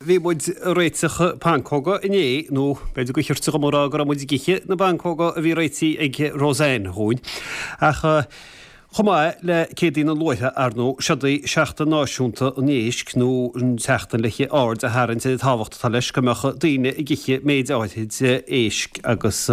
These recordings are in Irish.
bhí muid ag réiteach pancóga inné, nó b'fhéidir gur chirte dhom a rá go raibh muid ag ithe na bpancóga a bhí réitithe ag Roseanne dhúinn. Ach chomh maith le Céadaoin an Luaithe, ar ndóigh, seod í Seachtain Náisiúnta an Éisc, nó an tseachtain le haird a tharraingt ar an tábhacht atá leis go mbeadh daoine ag ithe méid áirid éisc agus.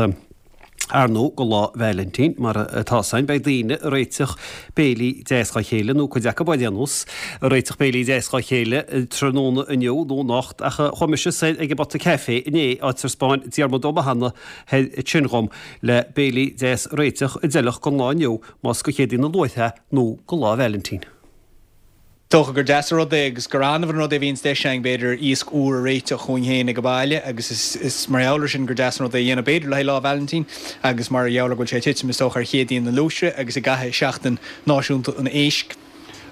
Ar ndóigh, go Lá Vailintín, mar atá 's againn, beidh daoine ag réiteach béilí deas dhá chéile, nó cuid acu ar aon nós, ag réiteach béilí deas dhá chéile tráthnóna inniu nó anocht, ach chuaigh mise soir ag an bPota Caife inné, áit ar 'spáin Diarmuid Ó Mathúna thoir ansin dhom, le béilí deas a réiteach a d'fheilfeadh don lá inniu, más go Céadaoin an Luaithe nó go Lá Vailintín. Dócha gur deas an rud é agus gur annamh an rud é a bhíonns deis againn, b'fhéidir, iasc úr a réiteach dhúinn féin ag an baile agus is mar gheall ar sin gur deas an rud é a dhéanamh, b'fhéidir, le haghaidh Lá Vailintín agus mar gheall ar go bhfuil sé ag titim, is dócha, ar Chéadaoin na Luaithre agus i gcaitheamh Seachtain Náisiúnta an Éisc.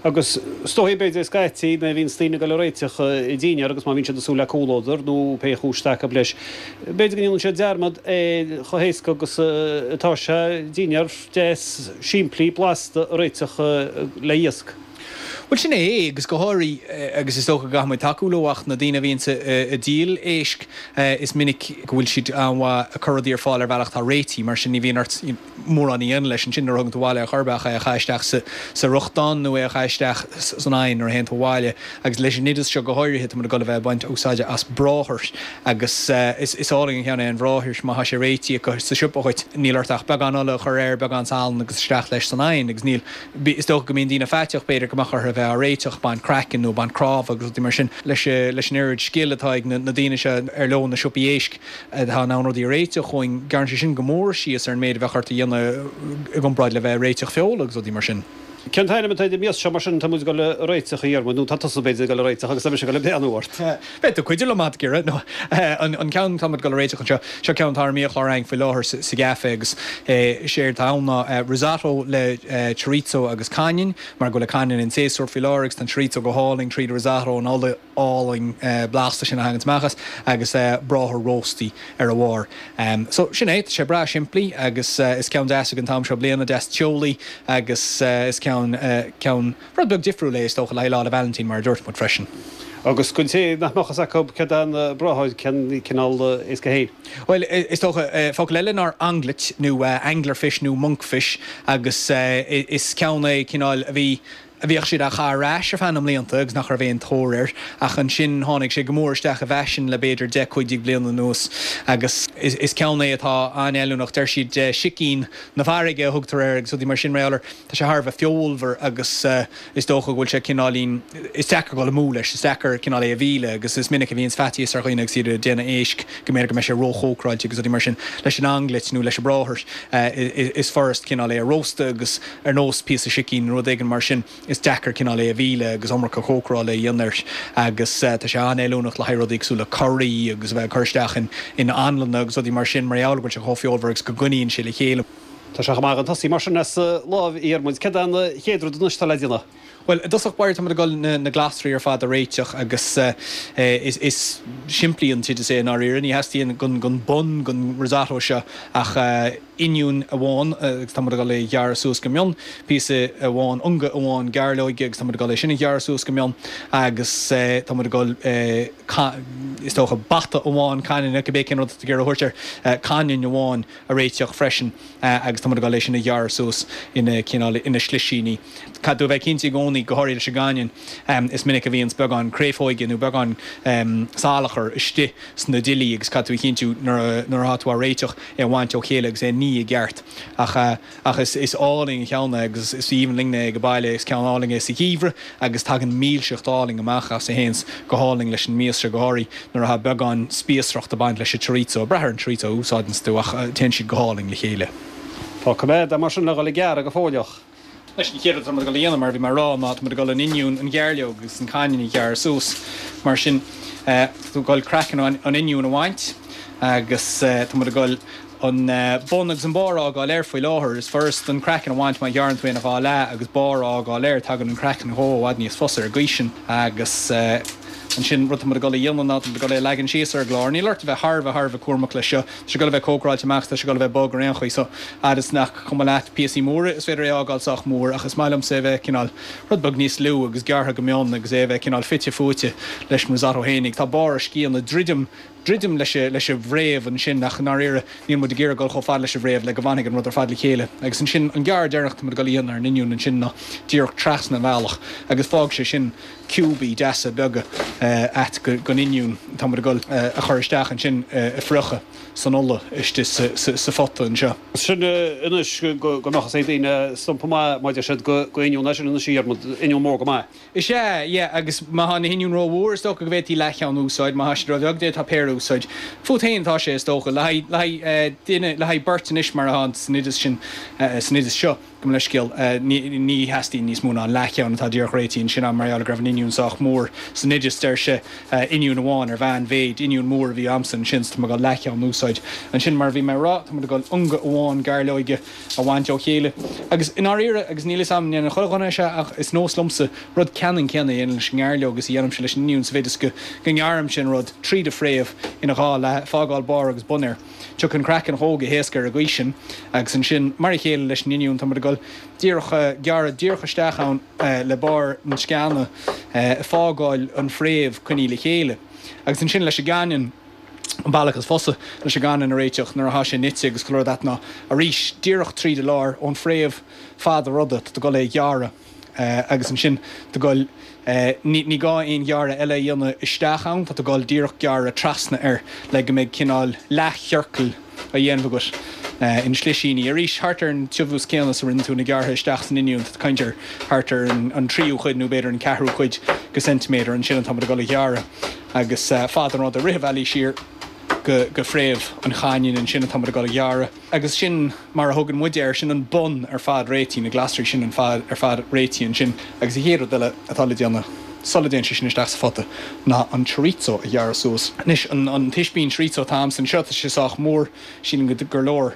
Agus is dóichí, b'fhéidir, scaití, nuair a bhíonns daoine ag dul ag réiteach dinnéar agus má bhíonn siad ag súil le comhluadar nó pé chúis atá acu leis, b'fhéidir go ndéanann siad dearmad ar chomh héasca agus atá sé dinnéar deas simplí blasta a réiteach le iasc. Bhuel, sin é é, agus go háirithe, agus is dócha go gcaithfidh muid tacú leo, ach na daoine a bhíonns ag díol éisc, is minic go bhfuil siad an-mhaith ag cur rudaí ar fáil ar bhealach atá réitithe, mar sin ní bhíonn ort mórán a dhéanamh leis ansin nuair a thugann tú abhaile é ar chor ar bith ach é a chaitheamh isteach sa fhriochtán nó é a chaitheamh isteach san oigheann nuair a théann tú abhaile. Agus leis an oideas seo go háirithe, tá muid ag dul a bheith ag baint úsáide as bráthair agus is álainn an ceann é an bhráthair má tá sé réitithe acu sa siopa dhuit, níl ort ach beagán ola a chur air, beagán salann agus isteach leis san oigheann agus níl Is dócha go mbíonn daoine faiteach, b'fhéidir, go mbeadh orthu a bheith á réiteach, baint craicinn nó baint cnámha agus rudaí mar sin. Leis an oiread scil atá ag na daoine seo ar leo na siopaí éisc atá in ann rudaí a réiteach dhúinn, gearrann sé sin go mór síos ar an méid a bheadh ort a dhéanamh i gcomparáid le bheith ag réiteach feola agus rudaí mar sin. Cén t-ainm atá ar an mias seo mar sin atá muid ag dul a réiteach, a Dhiarmuid, nó tá tusa b'fhéidir ag dul a réiteach agus tá mise ag dul ag breathnú ort? Beidh tú ag cuidiú liom ag iarraidh, nó an ceann atá muid ag dul a réiteach anseo, seo ceann atá ar an mbiachlár againn faoi láthair sa gcaife agus is éard atá ann ná risotto le chorizo agus cainneann, mar go bhfuil an cainneann in séasúr faoi láthair agus tá an chorizo go hálainn tríd an risotto, an ola álainn blasta sin a thaganns amach as agus bráthair róstaí ar a bharr. So sin é, tá sé breá simplí agus is ceann deas ag an t-am seo bliana, deas teolaí agus is ceann, ceann. Rud beag difriúil é, is dócha, le haghaidh Lá 'le Vailintín, mar a dúirt muid freisin. Agus don té nach mbeadh fhios acu céard é an bráthair, cén cineál éasc é féin? Bhuel, is dócha, focal eile ná anglet, nó anglerfish nó monkfish, agus is ceann é cineál a bhí, a bhíodh siad á chaitheamh ar ais ar feadh na mblianta agus nach raibh aon tóir air, ach ansin tháinig sé go mór isteach i bhfaisean le b'fhéidir 10, 15 bliana anuas agus is ceann é atá an-fheiliúnach. Deir siad sicín na farraige a thugtar air agus rudaí mar sin, mar gheall air. Tá sé thar a bheith feolmhar agus is dócha go bhfuil sé cineáilín, is deacair dul amú leis, is deacair cineál é a mhilleadh agus is minic a bhíonns faitíos ar dhaoine agus iad ag déanamh éisc go mb'fhéidir go mbeidh sé róchócaráilte agus rudaí mar sin. Leis an anglet nó leis an bráthair is furast cineál é a róstadh agus ar nós píosa sicín nó rud éigin mar sin is deacair cineál é a mhilleadh agus iomarca cócarála a dhéanamh air agus tá sé an-fheiliúnach le haghaidh rudaí cosúil le curaí agus a bheith ag cur isteach in anlanna agus rudaí mar sin mar gheall go bhfuil sé chomh feolmhar agus go gcoinníonn sé le chéile. Tá sé chomh maith chun tosaigh mar sin as láimh a Dhiarmuid. Céard é an chéad rud anois atá le déanamh? Bhuel, i dtosach báire tá muid ag dul na glasraí ar fad a réiteach agus is simplí an t-oideas é i ndáiríre. Ní theastaíonn don bun don risotto seo ach oinniún amháin agus tá muid ag dul é a ghearradh suas go mion, píosa amháin, ionga amháin gairleoige agus tá muid ag dul é sin a ghearradh suas go mion agus tá muid ag dul is dócha bata amháin cainne, cibé cén rud atá tú ag iarraidh a thabhairt air, cainneann amháin. a réiteach freisin agus tá muid ag dul é sin a ghearradh suas ina cineál, ina slisíní. Caithfidh tú a bheith cinnte i gcónaí, go háirithe leis an gcainneann, is minic a bhíonns beagán créafóige nó beagán salachar istigh sna duillí agus caithfidh tú a chinntiú nuair atá tú á réiteach é a bhaint ó chéile agus é a ní i gceart. Ach. Ach is álainn an ceann é agus is aoibhinn linne é ag baile. Is ceann álainn é sa gheimhreadh agus tagann milseacht álainn amach as a théanns go hálainn leis an mias seo, go háirithe nuair atá beagán spíosracht ag baint leis an chorizo. Ag brath ar an chorizo a úsáideanns tú ach téann siad go hálainn le chéile. Tá coimeád é mar sin le dhul ag gearradh go fóilleach. Anois, an chéad rud atá muid ag dul a dhéanamh, mar a bhí mé a rá, ná tá muid ag dul an oinniún, an ghairleog agus an cainneann a ghearradh suas. Mar sin, tá tú ag dul craiceann an oinniúin a bhaint agus tá muid ag dul an bun agus an barr a fhágáil air faoi láthair. Is furast an craiceann a bhaint má ghearrann tú é ina dhá leath agus barr a fhágáil air. Tagann an craiceann dhó i bhfad níos fusa ar an gcaoi sin agus. Ansin, rud tá muid ag dul a dhéanamh ná tá muid ag dul é a leagan síos ar an gclár. Níl ort a bheith thar a bheith thar a bheith cúramach leis seo. Tá sé ag dul a bheith cócaráilte amach is tá sé ag dul a bheith bog ar aon chaoi so fhad is nach cuma leat píosaí móra is féidir é a fhágáil sách mór ach is maith liomsa é a bheith cineál rud beag níos lú agus gearrtha go mion agus é a bheith cineál fite fuaite leis an risotto fhéinig. Tá barr a sciathanna druidim druidim leis leis an bhfréamh ansin ach i ndáiríre níl muid ag iarraidh dul chomh fada leis an bhfréamh le go bhfanfaidh an rud ar fad le chéile. Agus ansin an gearradh deireanach atá muid ag dul a dhéanamh ar an oinniún ansin ná díreach trasna an bhealach agus fágfaidh sé sin ciúbaí deasa beaga a'd gon oinniún atá muid ag dul a chur isteach ansin a phriochadh san ola istigh sa phota anseo. Sin anois go mbeadh fhios ag daoine stumpa maith má deir siad go oinniún é sin anois a Dhiarmuid, oinniún mór go maith. Is ea, yeah, agus má thá na hoinniúin ró-mhór is dócha go bhféadfaí leathcheann a úsáid, má thá siad ró-bheag d'fhéadfá péire a úsáid. Fút féin atá sé is dócha. Le haghaidh, le haghaidh duine, le haghaidh beirt anois mar atá san oideas sin, san oideas seo. Gabh mo leithscéal, ní theastaíonn níos mó ná an leathcheann atá díreach réitithe ansin agam mar gheall go raibh an oinniún sách mór san oideas. Deir sé oinniún amháin ar mheánmhéid, oinniún mór a bhí a'msa ansin so tá mé ag dul leathcheann a úsáid. Ansin mar a bhí mé a rá, tá muid ag dul ionga amháin gairleoige a bhaint ó chéile. Agus i ndáiríre, agus níl fhios a'm an ndéanann chuile dhuine é seo ach is nós liomsa rud ceannann céanna a dhéanamh leis an ngairleog is a dhéanaimse leis an oinniún sa mhéid is go ngearraimse an rud tríd an fréamh ina dhá leath, fágáil barr agus bun air. Tiocfaidh an craiceann dhó go héasca ar an gcaoi sin agus ansin, mar a chéile leis an oinniún, tá muid ag dul díreach gearradh díreach isteach ann le barr na sceana, ag fágáil an fréamh coinnithe le chéile. Agus ansin leis an gcainneann, an bealach is fusa leis an gcainneann a réiteach nuair atá sé nite agus chuile rud a'd ná arís díreach tríd an lár, ón fréamh fad an ruda, tá tú ag dul é a ghearradh. Agus ansin tá tú ag dul, ní gá aon ghearradh eile a dhéanamh isteach ann, tá tú ag dul díreach gearradh trasna air le go mbeidh cineál leathchiorcal á dhéanamh agat ina shlisíní. Arís, thart ar an tiubhas céanna is a rinne tú na gearrtha isteach san oinniún, tá tú ag caint ar thart ar an tríú cuid nó b'fhéidir an ceathrú cuid de ceintiméadar ansin atá muid ag dul a ghearradh agus fad an ruda rith an bhealaigh siar go fréamh an chaininn ansin atá muid ag dul a ghearradh. Agus sin mar a thugann muid air, sin an bun ar fad réitithe, na glasraí sin an fad ar fad réitithe ansin. Agus an chéad rud eile atá le déanamh sula dtéann sé sin isteach sa phota ná an chorizo a ghearradh suas. Anois, an t-ispín chorizo atá a'msa anseo, tá sé sách mór, sílim gur leor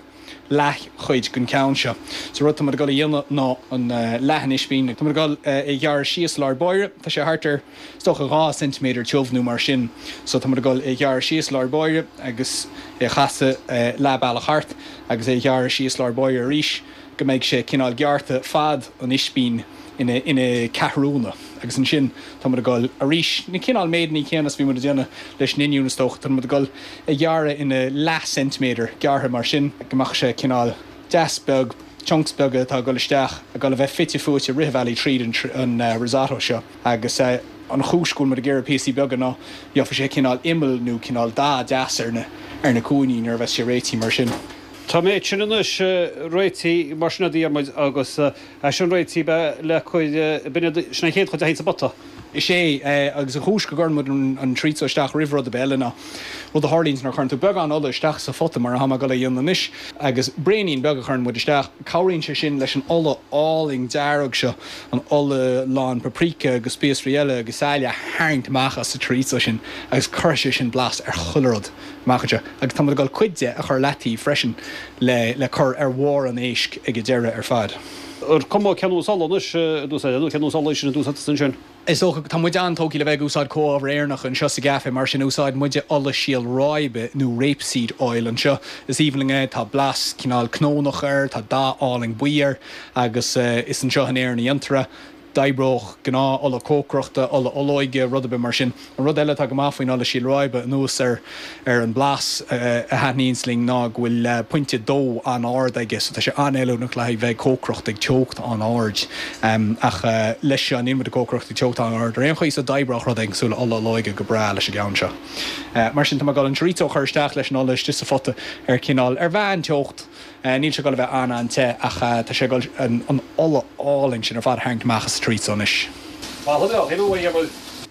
leathchuid den cheann seo. So rud atá muid ag dul a dhéanamh ná an leath an ispín, tá muid ag dul é a ghearradh síos i lár báire, tá sé thart ar, Is dócha 2 ceintiméadar tiubh nó mar sin. So tá muid ag dul é a ghearradh síos lár báire agus é a chasadh leath bealach thart agus é a ghearradh síos lár báire arís go mbeidh sé cineál gearrtha fad an ispín ina ina ceathrúna. Agus ansin tá muid ag dul arís na cineál méideanna céanna is bhí muid ag déanamh leis an oinniún is dócha. Tá muid ag dul a ghearradh ina leath ceintiméadar gearrtha mar sin go mbeadh sé cineál deas beag, chunks beaga atá ag dul isteach, ag dul a bheith fite fuaite rith an bhealaigh tríd an risotto seo. Agus an chúis go bhfuil muid ag iarraidh píosaí beaga ná gheobhaidh sé cineál imeall nó cineál dath deas ar na ar na cúinní nuair a bheas sé réitithe mar sin. Tá an méid sin anois réitithe mar sin a Dhiarmuid agus é sin réitithe le cur, b'in iad, sin an chéad chuid a théann sa bpota. Is é, agus an chúis go gcuireann muid an chorizo isteach roimh rud ar bith eile ná rud a tharlaíonns nuair a chuireann tú beagán ola isteach sa phota mar atá mé ag dul a dhéanamh anois agus braoinín beag a chuireann muid isteach, cabhraíonn sé sin leis an ola álainn dearg seo, an ola lán paprika agus spíosraí eile agus saille a tharraingt amach as an chorizo sin agus cuirfidh sé sin blas ar chuile rud amach anseo. Agus tá muid ag dul cuid de a chur leataobh freisin le le cur ar bharr an éisc ag an deireadh ar fad. Ar cuma cén nós ola anois a d'úsáid nó cén nós ola sin a d'úsáid tusa ansin? Is dócha, tá muid an-tógtha le bheith ag úsáid comhábhair Éireannacha anseo sa gcaife, mar sin úsáideann muide ola síol ráibe nó rapeseed oil anseo. Is aoibhinn linn é, tá blas cineál cnónach air, tá dath álainn buí air agus is anseo in Éirinn a dhéantar é. D'oibreodh gnáth ola cócaireachta, ola olóige, rud ar bith mar sin. An rud eile atá go maith faoin ola síol ráibe, anuas ar ar an blas a thaitníonns linn, ná go bhfuil pointe dó an-ard aige, so tá sé an-fheiliúnach le haghaidh bheith ag cócaireacht ag teocht an-ard. Ach leis seo, níl muid ag cócaireacht ag teocht an-ard ar aon chaoi, so d'oibreodh rud éigin cosúil le ola olóige go breá leis an gceann seo. Mar sin, tá mé ag dul an chorizo a chur isteach leis an ola istigh sa phota ar cineál, ar mheán-teocht. Níl sé ag dul a bheith an-an-te ach tá sé ag dul an ola álainn sin ar fad a tharraingt amach as an chorizo anois.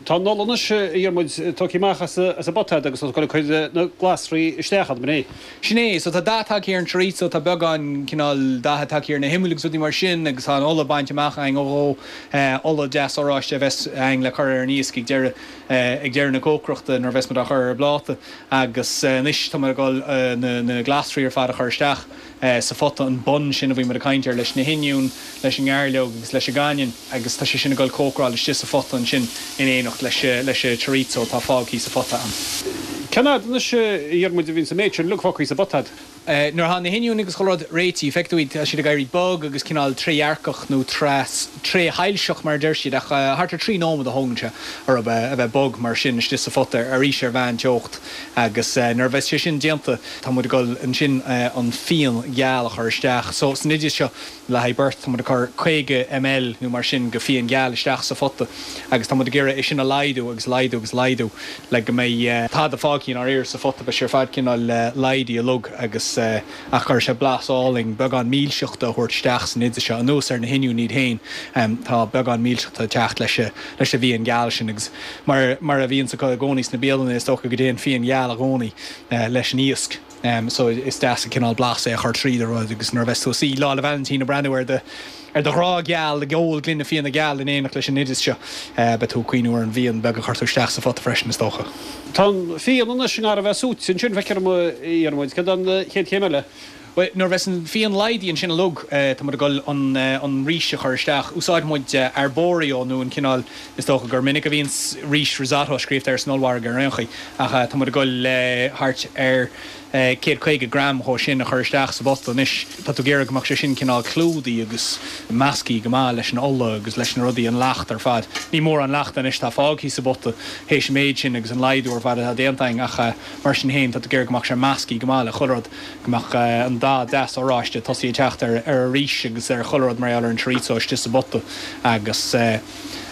Tá an ola anois, a Dhiarmuid, tógtha amach as an bpota agus tá tú ag dul ag cur na glasraí isteach ann, an é? Sin é. So tá dath tagtha ar an chorizo, tá beagán cineál datha tagtha ar na himill agus rudaí mar sin agus tá an ola bainte amach againn ó dhó, ola deas oráiste a bheas againn le cur ar an iasc ag deireadh, ag deireadh na cócaireachta nuair a bheas muid á chur ar an bpláta. Agus anois tá muid ag dul na glasraí ar fad a chur isteach sa phota, an bun sin a bhí muid ag caint air, leis na hoinniúin, leis an ngairleog agus leis an gcainneann agus tá sé sin ag dul cócaráil istigh sa phota ansin in éineacht. éineacht leis leis an chorizo atá fágthaí sa phota ann. Cén fhad anois a Dhiarmuid a bhíonns an méid sin uilig fágthaí sa bpota a'd? Nuair atá na hoinniúin agus chuile rud réitithe, feicfidh tú iad, tá siad ag éirí bog agus cineál trédhearcach nó tréshoilseach mar a deir siad ach thart ar 3 nóiméad a thógann sé orthu a bheith bog mar sin istigh sa phota arís ar mheánteocht agus nuair a bheas sé sin déanta tá muid ag dul ansin an fíon geal a chur isteach. So san oideas seo Le haghaidh beirt, tá muid ag cur 50 ml nó mar sin de fíon geal isteach sa phota agus tá muid ag iarraidh é sin a laghdú agus laghdú agus laghdú le go mbeidh tada fágtha i ndáiríre sa phota, beidh sé ar fad cineál laghdaithe uilig agus ach cuirfidh sé blas álainn, beagán milseachta a thabhairt isteach san oideas seo. Anuas ar na hoinniúin iad féin, tá beagán milseachta ag teacht leis leis an bhfíon geal sin agus mar mar a bhíonns acu i gcónaí sna bialanna is dócha go dtéann fíon geal i gcónaí leis an iasc. So is deas an cineál blas é a chur tríd an rud agus nuair a bheas tú ag suí Lá 'le Vailintín ag breathnú ar do ar do ghrá geal ag ól gloine fíona geal in éineacht leis an oideas seo, beidh tú ag cuimhniú ar an bhfíon beag a chuir tú isteach sa phota freisin is dócha. Tá an fíon anois i ngar a bheith súite ansin, feictear dom, a Dhiarmuid. Céard an chéad chéim eile? Bhuel, nuair a bheas an fíon laghdaithe ansin uilig, tá muid ag dul an an rís a chur isteach. Úsáideann muid arborio nó an cineál, is dócha gur minic a bhíonns rís risotto scríofa air san ollmhargadh ar aon chaoi, ach tá muid ag dul thart ar 150 gram dhó sin a chur isteach sa bpota anois. Tá tú ag iarraidh go mbeadh sé sin cineál clúdaithe agus measctha go maith leis an ola agus leis na rudaí, an leacht ar fad. Ní mórán leachta anois atá fágtha sa bpota théis an méid sin agus an laghdú ar fad atá déanta againn ach mar sin féin tá tú ag iarraidh go mbeadh sé measctha go maith le chuile rud, go mbeadh an dath deas oráiste tosaithe ag teacht ar an rís agus ar chuile rud mar gheall ar an chorizo istigh sa bpota agus.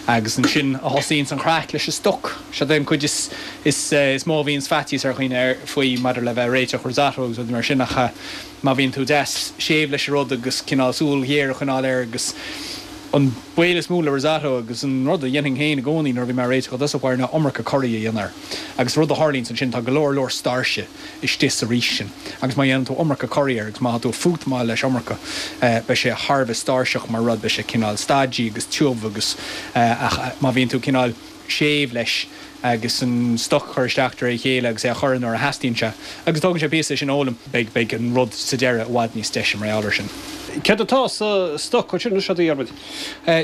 Agus ansin a thosaíonns an chraic leis an stoc. Seod é an cuid is is mó a bhíonns faitíos ar dhaoine ar faoi maidir le bheith ag réiteach risotto agus rudaí mar sin ach má bhíonn tú deas séimh leis an rud agus cineál súil ghéar a choinneáil air agus an baol is mó le risotto agus an rud a dhéanfainn féin i gcónaí nuair a bhí mé ag réiteach i dtosach báire ná iomarca curaí a dhéanamh air. Agus rud a tharlaíonns ansin tá go leor leor stáirse istigh sa rís sin agus má dhéanann tú iomarca curaí air agus má tá tú ag fútamáil leis iomarca beidh sé thar a bheith stáirseach mar rud, beidh sé cineál stodgy agus tiubh agus ach má bhíonn tú cineál séimh leis agus an stoc a chur isteach de réir a chéile agus é a chur nuair a theastaíonn sé agus tógann sé píosa é sin a fhoghlaim, beidh beidh an rud sa deireadh i bhfad níos deise mar gheall air sin. Céard atá sa stoc ansin anois, a Dhiarmuid?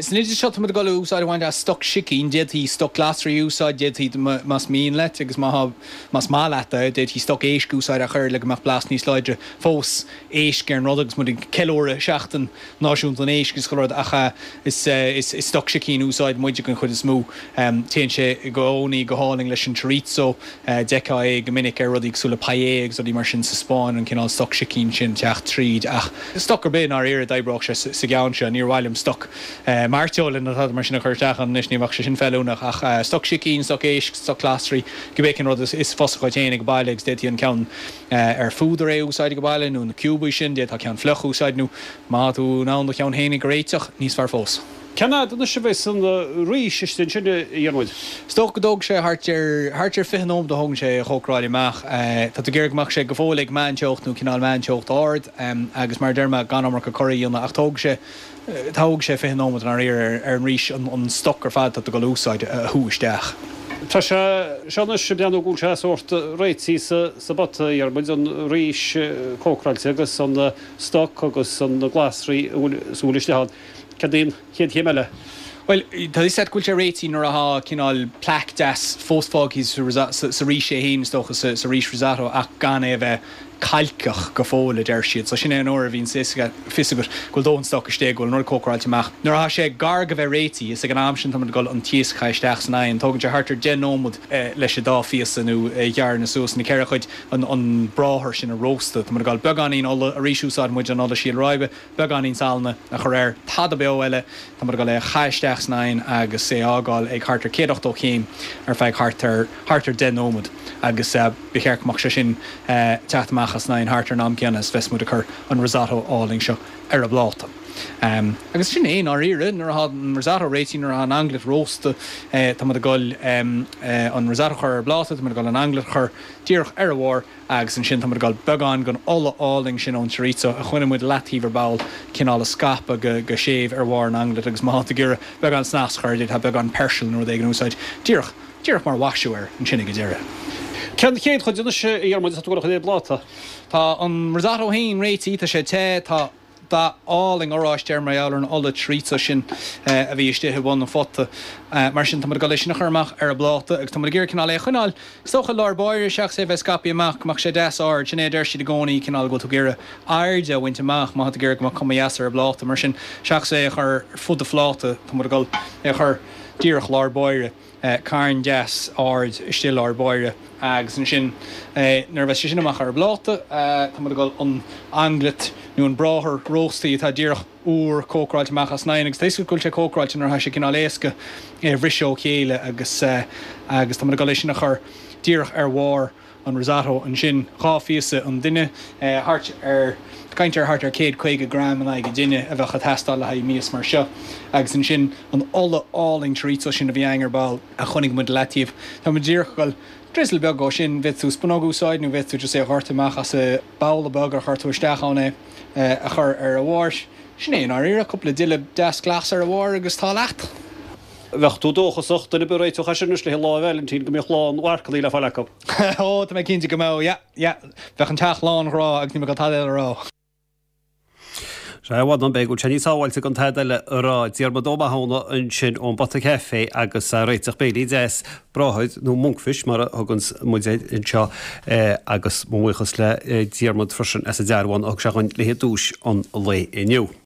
San oideas seo tá muid ag dul úsáid a bhaint as stoc sicín, d'fhéadfaí stoc glasraí a úsáid, d'fhéadfaí más mian leat agus má tá Más maith leat é, d'fhéadfaí stoc éisc a úsáid ach oiread le go mbeadh blas níos láidre fós éisc ar an rud agus muid ag ceiliúradh Seachtain Náisiúnta an Éisc agus chuile rud ach is stoc sicín a úsáideann muide den chuid is mó. Téann sé i gcónaí go hálainn leis an chorizo, d'fheicfeá é go minic ar rudaí cosúil le paella agus rudaí mar sin sa Spáinn, an cineál stoc sicín sin teacht tríd ach stoc ar bith i ndáiríre d'oibreodh sé sa gceann seo, níor mhaith liom stoc mairteola nó tada mar sin a chur isteach ann anois, ní bheadh sé sin feiliúnach ach stoc sicín, stoc éisc, stoc glasraí, cibé cén rud is fusa dhuit féin ag baile agus d'fhéadfaí an ceann ar phúdar é a úsáid ag baile nó na ciúbaí sin, d'fhéadfá ceann fliuch a úsáid nó má tá tú in ann do cheann féinig a réiteach, níos fearr fós. Cén fhad anois a bheas an rís istigh ansin, a Dhiarmuid? Is dócha go dtógfaidh sé thart ar, thart ar 20 nóiméad a thógann sé a chócaráil amach. Tá tú ag iarraidh go mbeadh sé go fóill ag meánteocht nó cineál meánteocht ard agus mar a deir mé gan iomarca curaí a dhéanamh ach tógfaidh sé, Tógfaidh sé 20 nóiméad i ndáiríre ar an rís an stoc ar fad atá tú ag dul a úsáid a shú isteach. Tá sé seo anois ag breathnú go bhfuil sé sórt réitithe sa bpota, a Dhiarmuid, an rís cócaráilte agus an stoc agus na glasraí a bhfuil is a bhfuil istigh ann. Céard í an chéad chéim eile? Bhuel, tá fhios agat go bhfuil sé réitithe nuair atá cineál plaic deas fós fágtha sa rís é féin, is dócha, sa rís risotto ach gan é a bheith cailceach go fóill, a deir siad. So sin é an uair a bhíonn fios agat go bhfuil dóthain stoc istigh, go bhfuil an rud cócaráilte amach. Nuair atá sé gar go bheith réitithe, is ag an am sin tá muid ag dul an t-iasc a chaitheamh isteach san oigheann. Tógann sé thart ar 10 nóiméad leis an dá phíosa nó a ghearradh suas ina ceithre chuid, an bráthair sin a róstadh. Tá muid ag dul beagáinín ola, arís úsáideann muid an ola síol ráibe, beagáinín salainn a chur air, tada beo eile, tá muid ag dul é a chaitheamh isteach san oigheann agus é a fhágáil ag thart ar 180 céim ar feadh thart ar thart ar 10 nóiméad agus ba cheart go mbeadh sé sin teacht amach as an oigheann thart ar an am céanna is bheas muid ag cur an risotto álainn seo ar an bpláta. Agus sin é i ndáiríre, nuair atá an risotto réitithe, nuair atá an anglais rósta, tá muid ag dul an risotto a chur ar an bpláta, tá muid ag dul an anglais a chur díreach ar a bharr, Agus ansin tá muid ag dul beagán den ola álainn sin ón chorizo a choinnigh muid leataobh ar ball, cineál a scaipeadh go go séimh ar bharr an anglais agus má tá tú ag iarraidh beagán snas a chur air d'fhéadfá beagán peirsil nó rud éigin a úsáid díreach, díreach mar mhaisiú air ansin ag an deireadh. Cén chéad chuid anois, a Dhiarmuid, atá tú ag dul a chur ar an bpláta? Tá an risotto féin réitithe, tá sé te, tá. Dath álainn oráiste air mar gheall ar an ola chorizo sin a bhí istigh i mbun an phota. Mar sin, tá muid ag dul é sin a chur amach ar an bpláta agus tá muid ag iarraidh cineál é a choinneáil, is dócha, i lár báire seachas é a bheith scaipthe amach, go mbeadh sé deas ard. Sin é a deir siad i gcónaí, cineál go bhfuil tú ag iarraidh airde a bhaint amach má tá tú ag iarraidh go mbeadh cuma dheas ar an bpláta. Mar sin, seachas é a chur ar fud an phláta, tá muid ag dul é a chur díreach lár báire. Carn deas ard istigh i lár báire agus ansin nuair a bheas sé sin amach ar an bpláta tá muid ag dul an anglet nó an bráthair róstaí atá díreach úr cócaráilte amach as an oigheann agus tá a fhios agat go bhfuil sé cócaráilte nuair atá sé cineál éasca é a bhriseadh ó chéile agus agus tá muid ag dul é sin a chur díreach ar bharr an risotto ansin, 2 phíosa an duine, thart ar, caint ar thart ar 150 gram in aghaidh an duine a bheadh ag teastáil le haghaidh mias mar seo. Agus ansin an ola álainn chorizo sin a bhí againn ar ball a choinnigh muid i leataobh. Tá muid díreach ag dul drizzle beag dhó sin, bhféadfadh tú spunóg a úsáid nó bhféadfadh tú just é a dhoirteadh amach as an babhla beag ar chuir tú isteach ann é a chur ar a bharr. Sin é i ndáiríre, cúpla duille deas glas ar a bharr agus tá leat. Bheadh tú dóchasach, duine ar bith a réiteodh é sin anois le Lá Vailintín go mbeadh lán mharcannaí le fáil acu. Ó, tá mé cinnte go mbeadh, yeah, yeah. Bheadh an teach lán ghrá agus níl mé ag dul tada eile a rá. Sea, bhuel, b'fhéidir go bhfuil sé níos sábháilte gan tada eile a rá. Diarmuid Ó Mathúna ansin ón bPota Café agus a réiteach béilí deas, bráthair nó monkfish mar a thuganns muid air anseo agus mo bhuíochas le Diarmuid freisin as an dearbhán a thug sé dhúinn le haghaidh duais an lae inniu.